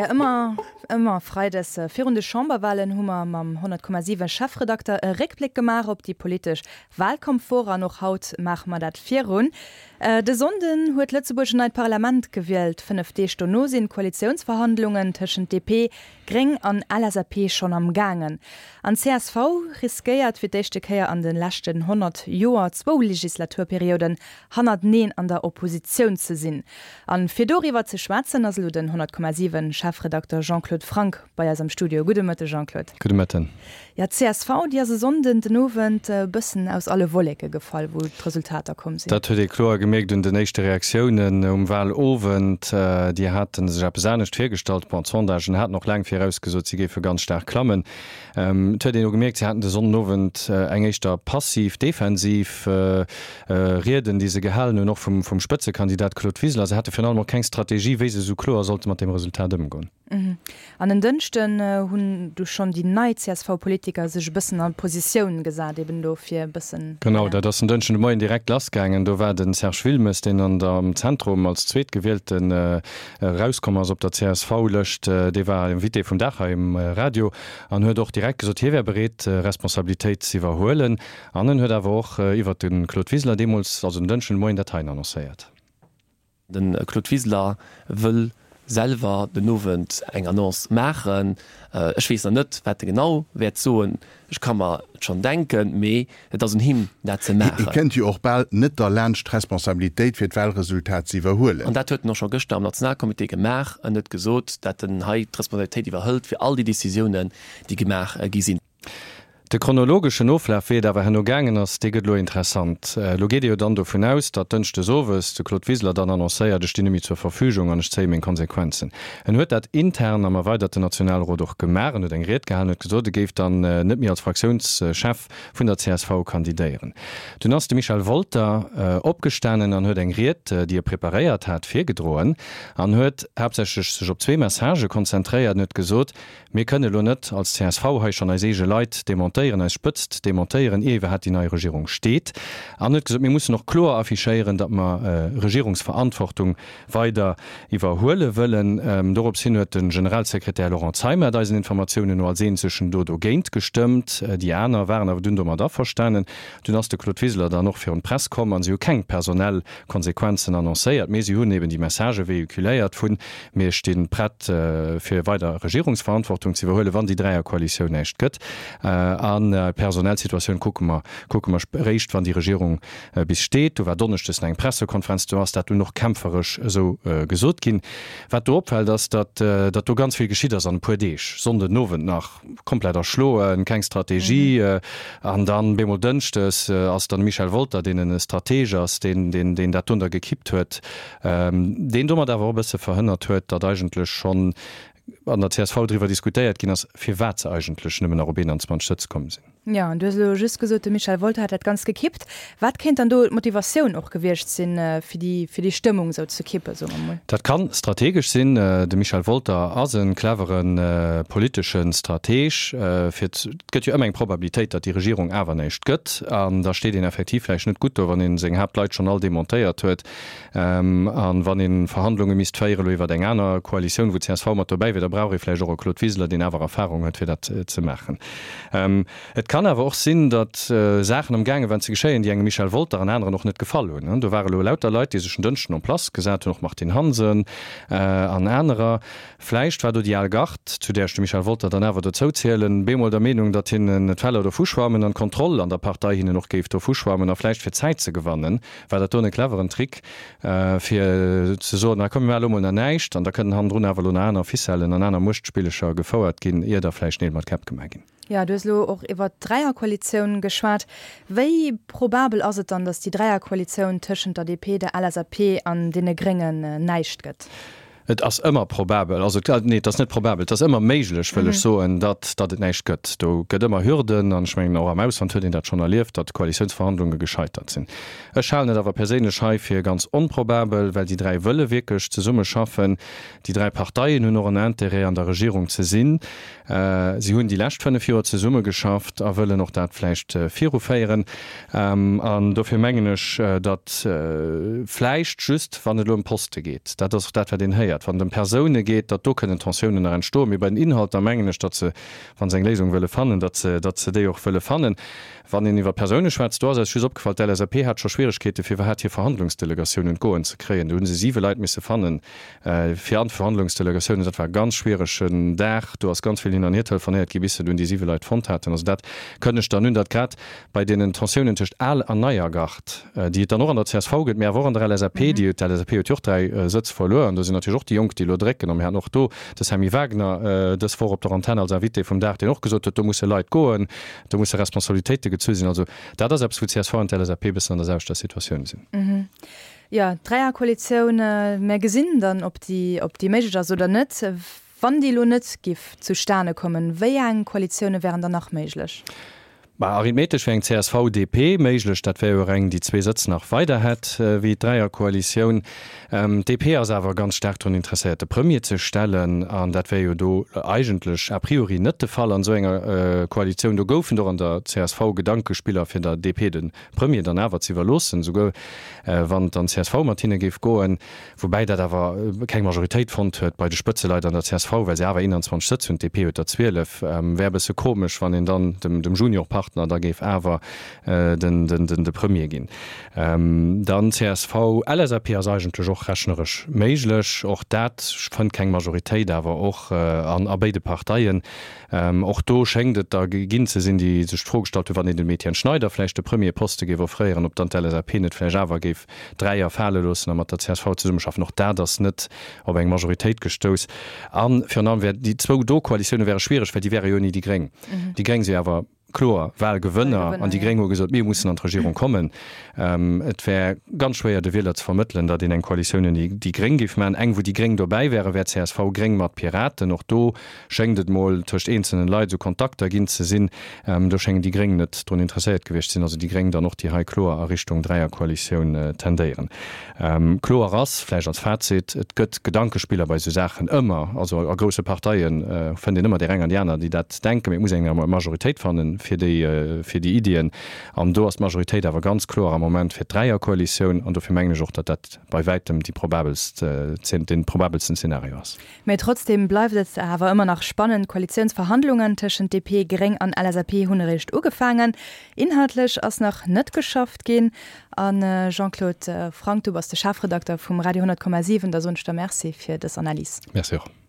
Ja, ëmmer, ëmmer freides virun de Chamberwahlen hu mer mam 100,7 Chefredakter e Réckbléck gemaach op déi politesch Wahlkampfwoch an och haut maache mer dat virun. De Sonnden huet Lëtzebuerg en neit Parlament gewielt. 5 Deeg dono sinn d'Koalitiounsverhandlungen tëschent DP, Gréng an LSAP schonn am gaangen. An csv riskéiert fir d'éischte Kéier an de leschten 100 Joer zwou Legislaturperioden hannerteneen an der Oppositioun ze sinn. An fir doriwwer ze schwätzen ass elo den 100,7 Chefredakter Jean-Claude Franck bei eis am Studio. Gudde Mëtte Jean-Claude. Gudde Mëtten. Jo, d'CSV déi ass e Sonnden den Owend e bëssen aus alle Wolleke gefall, wou d'Resultater komm sinn. Dat huet ee kloer gemierkt un den éischte Reaktiounen um Wahlowend. Déi hate sech eppes anescht virgestallt. Bon, d'Sondagen haten och laang virausgesot, si géife ganz staark klammen. Et huet een elo gemierkt, si haten de Sonnenowend eng éischter passiv, defensiv Rieden, déi se gehalen hunn, och vum Spëtzekandidat Claude Wiseler. Se hate virun allem och keng Strategie, wéi se esou kloer sollte mat deem Resultat ëmgoen. An en Dënschden hunn du schonn déi nei CSV-Politiker sech e bëssen a Positioun gesat, eben do fir e bëssen. Genau, dat ass en Dënschden de Moien direkt lassgaangen. Do war de Serge Wilmes, deen an der am Zentrum als Zweetgewielten erauskomm ass op der CSV-Lëscht, dee war Invité vum Dag hei um Radio an huet och direkt gesot, hie wär bereet, Responsabilitéit z'iwwerhuelen. An en huet awer och iwwert de Claude Wiseler deemools, also en Dënschden de Moien, dat heien annoncéiert. De Claude Wiseler wëll selwer den Owend eng Annonce maachen. Ech weess nach net, wat e genau wäert soen. Ech ka mer et schonn denken, mee et ass un him, dat ze Hie maachen. kënnt jo och bal net derlaanscht, d'Responsabilitéit fir d'Wahlresultat ze iwwerhuelen. An dat huet en och scho gëschter am Nationalcomité gemaach. En huet gesot, dat en hei d'Responsabilitéit iwwerhëlt fir all déi Decisiounen, déi gemaach gi sinn. De chronologeschen Oflaf, wéi et awer herno gaangen ass, dee gëtt elo interessant. Elo geet ee jo dann dovun aus, datt dënschdes owes de Claude Wiseler dann annoncéiert, ech stinn net méi zur Verfügung an ech zéie meng Konsequenzen. En huet dat intern am erweiderten Nationalrot och gemaach. En huet eng Ried gehalen, huet gesot, e géif dann net méi als Fraktiounschef vun der csv kandidéieren. Dunn ass de Michel Wolter opgestanen an huet eng Ried, déi e preparéiert hat, virgedroen an huet haaptsächlech sech op zwee Messagë konzentréiert. En huet gesot, Mir kënne elo net als csv hei schonn eis eege Leit demontéieren, eis Spëtzt demontéieren, ier iwwerhaapt déi nei Regierung steet. An huet gesot, mir mussen och kloer affichéieren, datt mer Regierungsverantwortung weider iwwerhuele wëllen. Dorops hin huet de Generalsekretär Laurent Zeimet eisen Informatiounen no als eenzegen do dogéint gestëmmt. Déi aner waren awer dunn domat averstanen. Dunn ass de Claude Wiseler dann och virun d'Press komm an si hu keng personell Konsequenzen annoncéiert, mee si hunn eben déi Messagë véhiculéiert vun, Mir sti prett fir weider Regierungsverantwortung ze iwwerhuelen, wann déi Dräierkoalitioun näischt gëtt. An d'personell Situatioun kucke mer, kucke mer eréischt, wann déi Regierung bis steet. Do war donneschdes nach eng Pressekonferenz, do ass dat dunn och kämpferesch esou gesot ginn. Wat do opfält, ass, datt datt do ganz vill geschitt ass an e puer Deeg, Sonnden Owend nach komplett erschloen, keng Strategie, an dann bemol dënschdes ass dann de Michel Wolter, deen e Strateg ass, deen deen dat dunn da gekippt huet. Deen domat awer och e bësse verhënnert huet, datt eigentlech schonn an der csv driwwer diskutéiert ginn ass, firwat se eigentlech nëmmen nach op 21 Sëtz komm sinn. Jo, an du hues elo just gesot, de Michel Wolter hat dat Ganzt gekippt. Wat kéint dann do d'Motivatioun och gewiescht sinn, fir déi, fir déi Stëmmung esou ze kippen, soe mer mol? Dat ka strategesch sinn. De Michel Wolter ass e clevere politesche Strateg. Fir, et gëtt jo ëmmer eng Probabilitéit, datt déi Regierung awer näischt gëtt. An da steet een effektiv vläicht net gutt do, wann ee seng Haaptleit schonn all demontéiert huet. An wann ee Verhandlunge misst féieren elo iwwer eng aner Koalitioun, wou csv mat dobäi wier, da brauch ee vläicht och e Claude Wiseler, deen awer Erfahrung huet, fir dat ze maachen. Et kann awer och sinn, datt Saachen am gaange waren ze geschéien, déi engem Michel Wolter an aneren och net gefall hunn. Do ware elo lauter Leit, déi sech en Dënschden en place gesat hunn, och Martine Hansen an anerer. Vläicht war do déi al Gard, zu där ech de Michel Wolter dann awer dozou zielen, bemol der Meenung, datt hinnen d'Feller dovuschwammen an d'Kontroll an der Partei hinnen och géif dovuschwammen a vläicht fir Zäit ze gewannen, war dat doen e cleveren Trick, fir ze soen, ah komm mir maache lo mol nach näischt an da kënnen hannendrun awer lo nach aner Ficellen an aner Muechtspillecher gefouert ginn, ier da vläicht Neel mat Käpp gemaach ginn. Jo, du hues elo och iwwert d'Dräierkoalitioun geschwat. Wéi probabel ass et dann, datt déi Dräierkoalitioun tëschent der DP, der LSAP an deene Gréngen näischt gëtt? Et ass ëmmer probabel, also nee, et ass net probabel, et ass ëmmer méiglech, wëll ech soen, datt, datt et näischt gëtt. Do gëtt ëmmer Hürden an ech mengen, och am Ausland huet een dat schonn erlieft, datt Koalitiounsverhandlunge gescheitert sinn. Ech halen et awer perséinlech hei fir ganz onprobabel, well déi 3 wëlle wierklech zesummeschaffen. Déi 3 Parteien hunn och en Intérêt, an der Regierung ze sinn. Si hunn déi lescht 5 Joer zesummegeschafft a wëllen och dat vläicht viruféieren. An dofir mengen ech, datt vläicht just, wann et elo ëm Poste geet, dat ass och dat, wat een héiert. dat, wann et ëm Persoune geet, datt do kënnen Tensiounen nach entstoen. Mee bei den Inhalter mengen ech, datt se, wa se eng Léisung wëlle fannen, datt se, datt se déi och wëlle fannen. Wann een iwwer Persoune schwätzt, do ass eis just opgefall, d'LSAP hat scho Schwieregkeete fir iwwerhaapt hir Verhandlungsdelegatioun un d'Goen ze kréien. Do hu se siwe Leit misse fannen fir an d'Verhandlungsdelegatiounen. Dat war e ganz schwieregen Dag. Do ass ganz vill hin an hier telefonéiert gi bis se dunn déi siwe Leit fonnt haten. Also dat kënnegt dann un, datt grad bei deenen Tensiounen tëscht al an neier Gard, déi et dann och an der csv gëtt, mee awer och an der LSAP, déi, d'LSAP huet jo och 3 Sëtz verluer an do sinn natierlech och déi Jonk, déi elo drécken. A mir haten och do de Sammy Wagner dës Woch op der Antenn als Invité vum Dag, deen och gesot huet, do musse Leit goen, do musse Responsabilitéite gezu sinn. Also dat ass eppes, wou d'CSV an d'LSAP e bëssen an der selwechter Situatioun sinn. Jo, d'Dräierkoalitioun, mir gesinn dann, ob déi, ob déi méiglech ass oder net. Wann déi elo net giff zustane kommen, wéi eng Koalitioune wären dann nach méiglech? Bah, arithmetesch wär eng CSV-DP méiglech, dat wär jo och eng, déi zwee Sëtz nach weider hätt wéi d'Dräierkoalitioun. D'DP ass awer ganz staark drun interesséiert, de Premier ze stellen, an dat wär jo do eigentlech a priori net de Fall an esou enger Koalitioun. Do goufen et och an der csv Gedankespiller, fir der DP de Premier dann awer ze iwwerloossen, souguer wann dann csv mat hinne géif goen. Woubäi dat awer keng Majoritéit fonnt huet bei de Spëtzeleit an der csv, well se awer 21 Sëtz hunn, d'DP huet der 12. Wär e bësse komesch, wann een dann dem Juniorpartner da géif awer de Premier ginn. Dann csv, LSAP ass eigentlech och rechneresch méiglech. Och dat fënnt keng Majoritéit, awer och a béide Parteien. Och do schéngt et der ginn ze sinn, déi sech d'Fro gestallt hunn, wann een dem Etienne Schneider vläicht de Premierposte géif offréieren, ob dann d'LSAP net vläicht awer géif Dräier fale loossen a mat der csv zesummeschaffen. Och dat ass net op eng Majoritéit gestouss. A virun allem wär déi zwou do Koalitioune wäre schwiereg, well déi wäre jo ouni déi Gréng. Déi Gréng si awer kloer Wahlgewënner an déi Gréng hu gesot, mir mussen an d'Regierung kommen. Et wär ganz schwéier de Wieler ze vermëttelen, datt een eng Koalitioun ouni déi Gréng géif maachen. Eng wou déi Gréng dobäi wären, wär CSV-Gréng mat Piraten. Och do schéngt et mol tëscht eenzelnen Leit esou Kontakter ginn ze sinn. Do schéngen déi Gréng net drun interesséiert gewiescht ze sinn, also déi Gréng dann och, déi hei kloer a Richtung Dräierkoalitioun tendéieren. Kloer ass vläicht als Fazit, et gëtt Gedankespiller bei esou Saachen ëmmer, also a grousse Parteie fënnt een ëmmer déi eng an déi aner, déi dat denken, mee et muss een eng Majoritéit fanne fir déi, fir déi Iddien. An do ass d'Majoritéit awer ganz kloer am Moment fir d'Dräierkoalitioun an dofir mengen ech och, datt dat bei wäitem déi probabelst, dee probabelsten Zeenario ass. Mee trotzdeem bleift et awer ëmmer nach spannend. D'Koalitiounsverhandlungen tëschent DP, Gréng an LSAP hunn eréischt ugefaangen. Inhaltlech ass nach net geschafft ginn. A Jean-Claude Franck, du bass de Chefredakter vum Radio 100,7, da soen ech der Merci fir dës Analys. Merci och.